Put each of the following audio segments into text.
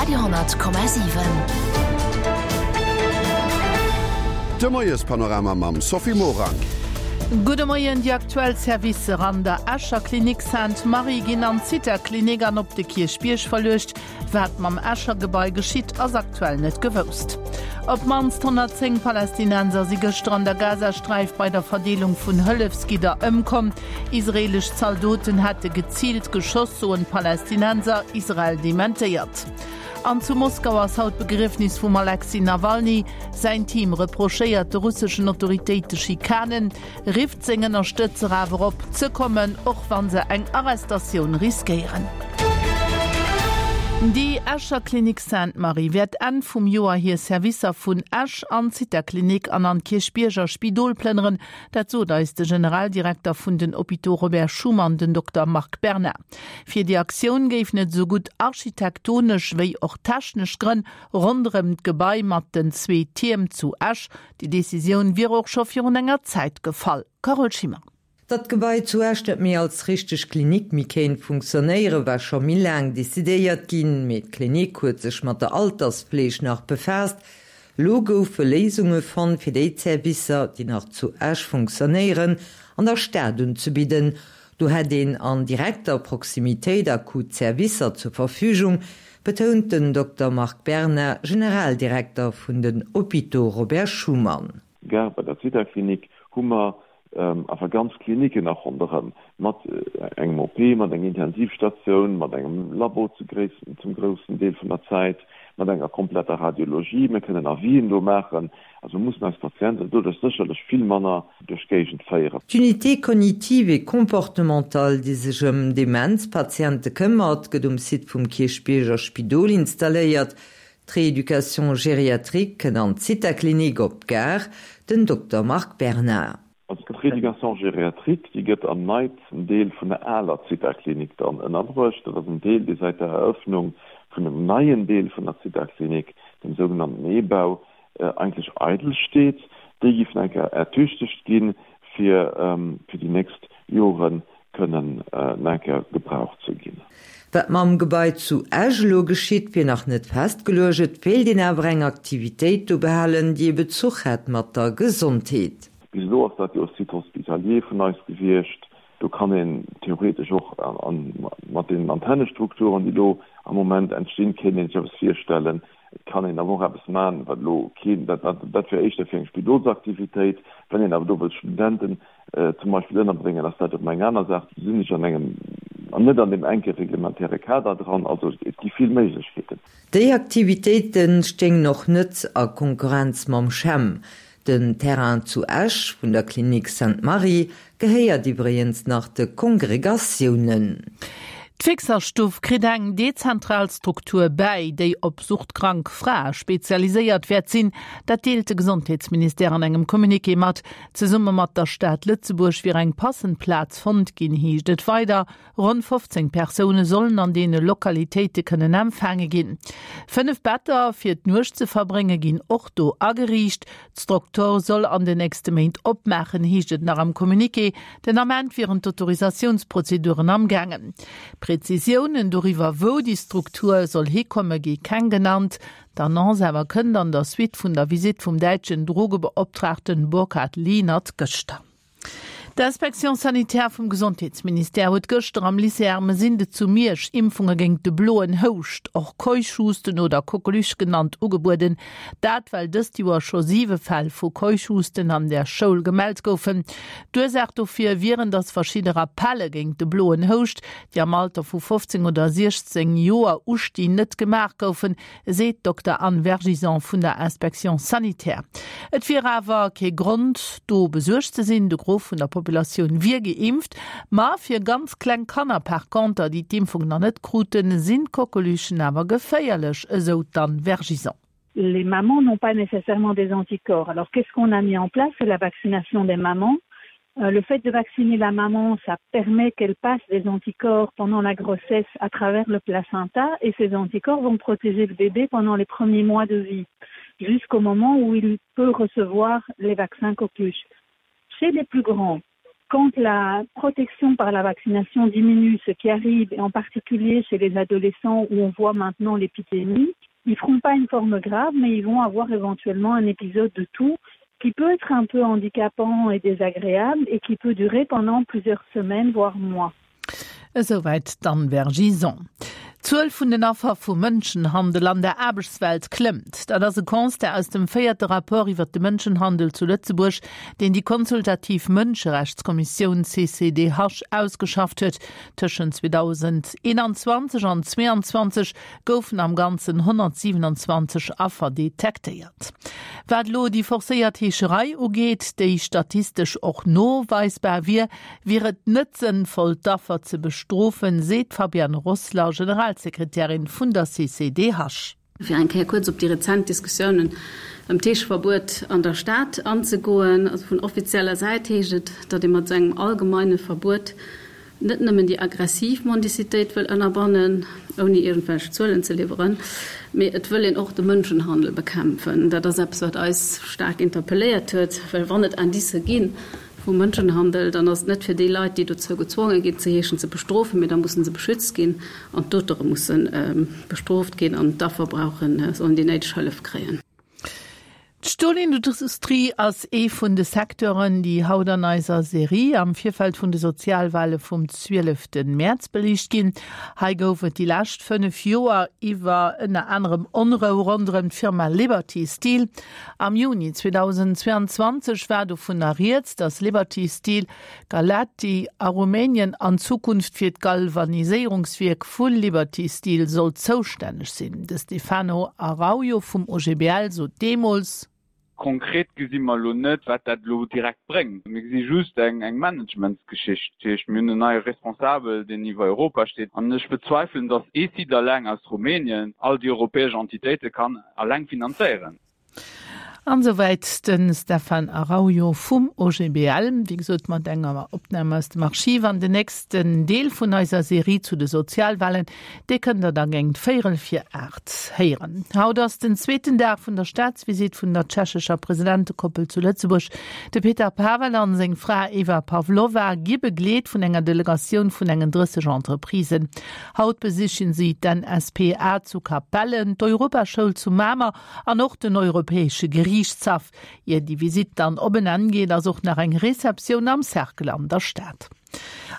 Radio,7. De Moiespanorama mam Sophie Morang. Gudde Moien, Déi aktuell Servicer an der Escher Klinik Sainte-Marie ginn an d'Zitha-Klinik an op de Kierchbierg verluecht. Wat mam Escher Gebai geschitt, ass aktuell net gewousst. Op d'mannst 110 Palästinenser si gëschter an der Gazasträif bei der Verdeelung vun Hëllefsgidder ëmkomm. Israeelesch Zaldoten hätte geziilt geschoss, soen d'Palästinenser. Israel dementéiert. An zu Moskau ass haut d'Begriefnis vum Alexej Nawalny. Säin Team reprochéiert de russeschen Autoritéite Schikanen. Rifft seng Ënnerstëtzer awer op, ze kommen, och wa se eng Arrestatioun riskéieren. Déi Escher Klinik Sainte-Marie wäert Enn vum Joer hir Servicer vun Esch an d'Zitha-Klinik an an d'Kierchbierger Spidol plënneren. Dat sot eis de Generaldirekter vun den Hôpitaux Robert Schuman, den Dokter Marc Berna. Fir déi Aktioun géifen et esou gutt architektonesch wéi och technesch Grënn ronderëm d'Gebai mat den zwee Tierm zu Esch. Déi Decisioun wier och scho virun enger Zäit gefall. Carole Schimmer. Datt d'Gebai zu Esch net méi als richteg Klinik méi kéint funktionéieren, war scho méi laang decidéiert ginn. Mee d'Klinik huet sech mat der Altersfleeg nach befaasst. Elo goufe Léisunge fonnt, fir déi Zerwisser, déi nach zu Esch funktionéieren, an der Stad unzebidden. Do hätt een an direkter Proximitéit akut Zerwisser zur Verfügung, betount den Dokter Marc Berna, Generaldirekter vun den Hôpitaux Robert Schuman. Gare bei der Zitha-Klinik hu mer awer ganz Kliniken nach ronderëm, mat engem OP, mat enger Intensivstatioun, mat engem Labo zu zum groussen Deel vun der Zäit, mat enger kompletter Radiologie. Mir kënnen Avisen do maachen. Also mir mussen eis Patienten doduerch sécherlech vill manner duerch d'Géigend féieren. D'Unité cognitive et comportementale, déi sech ëm Demenzpatiente këmmert, gëtt um Site vum Kierchbierger Spidol installéiert. D'Rééducation gériatrique kënnt an d'Zitha-Klinik op d'Gare, den Dokter Marc Bernard. Also d'Rééducation gériatrique, déi gëtt am neitsten Deel vun der aler Zitha-Klinik dann ënnerbruecht. Dat ass en Deel, dee säit der Eröffnung vun dem neien Deel vun der Zitha-Klinik, dem sougenannten E-Bau, eigentlech eidel steet. Déi géif nach eng Kéier ertüchtegt ginn, fir fir déi nächst Jore kënnen nach eng Kéier gebraucht ze ginn. Wat mam Gebai zu Esch elo geschitt, wier nach net festgeluecht. Et wéilt een awer eng Aktivitéit do behalen, déi e Bezuch hätt mat der Gesondheet. Bis elo ass dat jo e Site hospitalier vun eis gewiescht. Do kann een theoretesch och mat deenen Antennestrukturen, déi elo am Moment entstinn, kéint een sech eppes virstellen. Et kann een awer och eppes maachen, wat elo keen, dat, dat wär éischter fir eng Spidolsaktivitéit. Wann een awer do wëllt Studenten zum Beispill ënnerbréngen, ass dat erëm eng aner Saach. Do sinn ech an engem, an net an deem enke reglementäre Kader dran. Also et gi vill Méiglechkeeten. Déi Aktivitéite stéingen och net a Konkurrenz mam CHEM. Den Terrain zu Esch vun der Klinik Sainte-Marie gehéiert iwwregens nach de Kongregatiounen. D'Fixerstuff kritt eng dezentral Struktur bäi, déi op suchtkrank Frae spezialiséiert wäert sinn. Dat deelt de Gesondheetsministère an engem Communiqué mat. Zesumme mat der Stad Lëtzebuerg wier eng passend Plaz fonnt ginn, heescht et weider. Ronn 15 Persoune sollen an deene Lokalitéite kënnen empfaange ginn. 5 Better fir d'Nuecht ze verbrénge ginn och do ageriicht. D'Struktur soll an den nächste Méint opmaachen, heescht et nach am Communiqué. Den Ament wieren d'Autorisatiounsprozeduren am gaangen. Prezisiounen doriwwer, wou déi Struktur soll hikomme gi keng genannt. D'Annonce awer kënnt an der Suite vun der Visitt vum däitschen Drogebeoptraagten Burkhard Lienert gëschter. D'Inspection sanitaire vum Gesondheetsministère huet gëschter am Lycée Ermesinde zu Miersch Impfunge géint de bloen Houscht, och Keuchhusten oder Coqueluche genannt, ugebueden. Dat well dëst Joer scho siwe Fäll vu Keuchhusten an der Schoul gemellt goufen. D'Ursaach dofir wieren, datt verschidde Rappelle géint de bloen Houscht, déi am Alter vu 15 oder 16 Joer ustinn, net gemaach goufen. seet d'Dokter Anne Vergison vun der Inspection sanitaire. Et wier awer kee Grond, do besuergt ze sinn, de Gros vun der Populatioun wier geimpft. Ma fir ganz kleng Kanner par conter, déi d'Impfung nach net kruten, sinn d'Coqueluchen awer geféierlech, esou d'Anne Vergison. Les mamans n'ont pas nécessairement des anticorps. Alors qu'est-ce qu'on a mis en place? C'est la vaccination des mamans. Euh, le fait de vacciner la maman, ça permet qu'elle passe des anticorps pendant la grossesse à travers le placenta et ces anticorps vont protéger le bébé pendant les premiers mois de vie jusqu'au moment où il peut recevoir les vaccins coqueluche. Chez les plus grands. Quand la protection par la vaccination diminue, ce qui arrive et en particulier chez les adolescents où on voit maintenant l'épidémie, ils feront pas une forme grave, mais ils vont avoir éventuellement un épisode de tout qui peut être un peu handicapant et désagréable et qui peut durer pendant plusieurs semaines voire mois. Esouwäit d'Anne Vergison. D'Zuel vun den Affer vu Mënschenhandel an der Aarbechtswelt klëmmt. Dat ass e Constat aus dem véierte Rapport iwwert de Mënschenhandel zu Lëtzebuerg, deen déi consultativ Mënscherechtskommissioun CCDH ausgeschafft huet. Tëschent 2021 an 2022 goufen am Ganzen 127 Affer detektéiert. Wat elo déi forcéiert Heescherei ugeet, déi statistesch och noweisbar wier, wier et net sënnvoll, d'Affer ze bestrofen, seet d'Fabienne Rossler, Generalsekretärin vun der CCDH. Fir eng Kéier kuerz op déi rezent Diskussiounen ëm d'Heescheverbuet an der Stad anzegoen, also vun offizieller Säit heescht et, datt ee mat esou engem allgemeine Verbuet net nëmmen déi aggressiv Mendicitéit wëll ënnerbannen, ouni iergendwelch Zuelen ze liwweren, mee et wëll een och de Mënschenhandel bekämpfen. Dat ass eppes, wat eis staark interpelléiert huet, well wann et Indicë gi vu Mënschenhandel, dann ass et net fir déi Leit, déi dozou gezwonge ginn ze heeschen, ze bestrofen, mee da musse se beschützt ginn an d'Auteure musse bestrooft ginn an d'Affer brauchen, sollen déi néideg Hëllef kréien. D'Stolindustrie ass ee vun de Secteuren, déi haut an eiser Serie am Virfeld vun de Sozialwale vum 12 Mäerz beliicht ginn. Hei gouf et déi lescht 5 Joer iwwer ënner anerem Onrou ronderëm d'Firma Liberty Steel. Am Juni 2022 war dovunner rieds, datt Liberty Steel Galati a Rumänien an Zukunft fir d'Galvaniséierungswierk vu Liberty Steel soll zoustänneg sinn. De Stefano Araujo vum OGBL sot deemools. Konkret gesi mer elo net, wat dat elo direkt bréngt. Mir gesi just eng Managementsgeschicht. Dat heescht, mir hunn en neie Responsabel, deen iwwer Europa steet. An ech bezweifelen, datt ee Site eleng aus Rumänien all déi europäesch Entitéite kann eleng finanzéieren. An esouwäit de Stefan Araujo vum OGBL, wéi gesot mat enger Opnam aus dem Archiv. An den nächsten Deel vun eiser Serie zu de Sozialwahlen, dee kënnt der da géint véierel vir 8 héieren. Haut ass den zweeten Dag vun der Staatsvisitt vun der tschechescher Presidentekoppel zu Lëtzebuerg. De Petr Pavel an seng Fra Eva Pavlova gi begleet vun enger Delegatioun vun engen 30 Entreprisen. Haut besichen si d'NSPA zu Capellen, d'Europaschoul zu Mamer an och den Europäesche Geriichtshaff. Ier déi Visitt dann op en Enn geet, ass och nach eng Receptioun am Cercle an der Stad.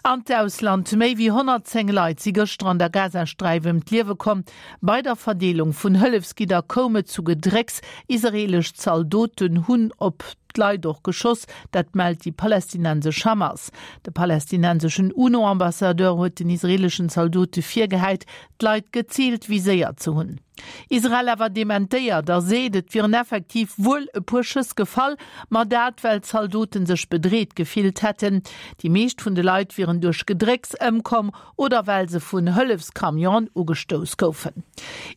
An d'Ausland, Méi wéi 110 Leit si gëschter an der Gazasträif ëm d'Liewe komm. Bei der Verdeelung vun Hëllefsgidder koum et zu Gedrécks. Israeelesch Zaldoten hunn op d'Leit och geschoss, dat mellt déi palästinensesch Hamas. De palästinenseschen UNO-Ambassadeur huet den israeeleschen Zaldote virgehäit, d'Leit geziilt viséiert ze hunn. Israel awer dementéiert a seet, et wieren effektiv wuel e puer Schëss gefall, ma dat well d'Zaldote sech bedreet gefillt hätten. Déi meescht vun de Leit wieren duerch Gedrécks ëmkomm oder well se vun Hëllefscamionen ugestouss goufen.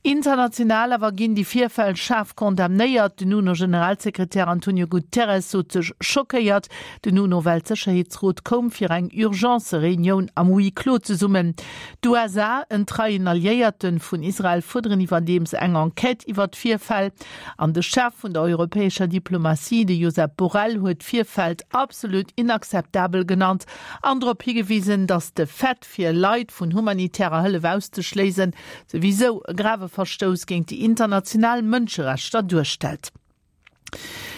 International awer ginn déi Virfäll schaarf condamnéiert. Den UNO-Generalsekretär Antonio Guterres sot sech schockéiert. Den UNO-Weltsécherheetsrot koum fir eng Urgence-Reunioun am Huis clos zesummen. D'USA, en treien Alliéierte vun Israel, fuerderen iwwerdeems eng Enquête iwwer d'Virfäll. An de Chef vun der europäescher Diplomatie, de Josep Borrell, huet d'Virfält absolut inakzeptabel genannt an drop higewisen, datt de Fait, fir Leit vun humanitärer Hëllef auszeschléisen, souwisou e grave Verstouss géint déi international Mënscherechter duerstellt.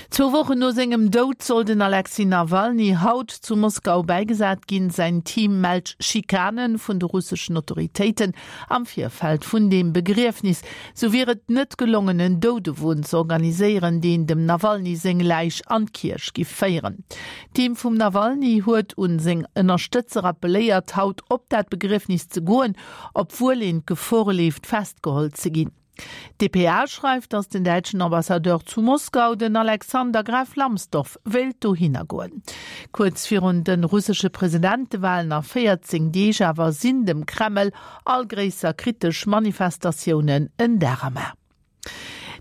Zwou Wochen no sengem Doud soll den Alexej Nawalny haut zu Moskau bäigesat ginn. Säin Team mellt Schikane vun de russeschen Autoritéiten am Virfeld vun deem Begriefnis. Sou wier et net gelongen, en Doudewon ze organiséieren, deen dem Nawalny seng Läich an d'Kierch giff féieren. D'Team vum Nawalny huet un seng Ënnerstëtzer appelléiert, haut op dat Begriefnis ze goen, obwuel een d'Gefor leeft, festgeholl ze ginn. D'dpa schreift, datt den däitschen Ambassadeur zu Moskau, den Alexander Graf Lambsdorff, wéilt dohinner goen. Kuerz virun de russesche Presidentewalen a 14 Deeg awer sinn dem Kreml all gréisser kritesch Manifestatiounen en Dar am A.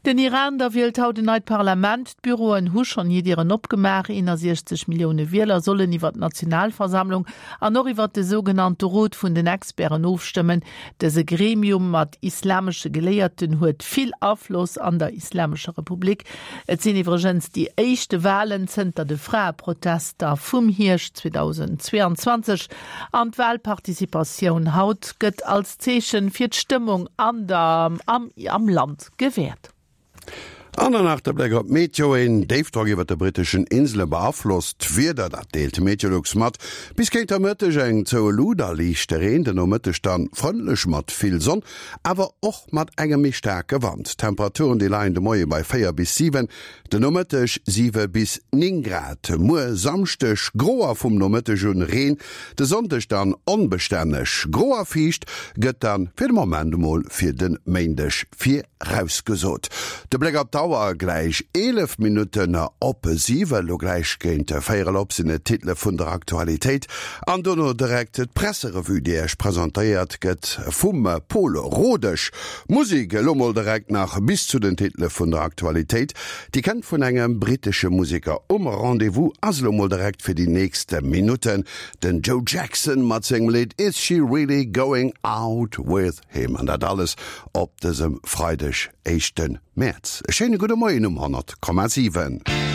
Den Iran da wielt haut en neit Parlament. D'Büroen hu schonn hir Dieren opgemaach. 61 Millioune Wieler sollen iwwer d'Nationalversammlung an och iwwer de sougenannte Rot vun den Experten ofstëmmen. Dëse Gremium mat islamesche Geléierten huet vill Afloss an der Islamescher Republik. Et sinn iwwregens déi éischte Walen zënter de Fraeprotester vum Hierscht 2022. An d'Walparticipatioun haut gëtt als Zeechen fir d'Stëmmung an der am am Land gewäert. An dann nach de Bléck op d'Meteo, Een Déifdrock iwwert de britteschen Insele beaflosst d'Wieder, dat deelt Meteolux mat. Bis géint der Mëtteg eng zoue Lut a liichte Reen, den Nomëtteg dann frëndlech mat vill Sonn, awer och mat engem méi staarke Wand. D'Temperaturen déi leien de Moie bei 4 bis 7, Den Nomëtteg 7 bis 9 Grad, muer Samschdeg gro a vum Nomëtteg un Reen, de Sonndeg dann onbestänneg gro a fiicht gëtt dann fir de Moment emol fir de Méindeg virausgesot. De Bléck op d'Auer, gläich 11 Minutten op 7, elo gläich géint véierel op sinn et d'Titele vun der Aktualitéit an dono direkt d'Presserevue, déi Iech presentéiert gëtt vum Pol Rodesch. Musik elo mol direkt nach bis zu den Titele vun der Aktualitéit. Déi kennt vun engem brittesche Museker. Um Rendez-vous ass elo mol direkt fir déi nächst Minutten den Joe Jackson mat sengem Lidd Is She Really Going Out With Him? An dat alles op dësem Freideg, éischte Mäerz. E schéine gudde Moien um 100,7.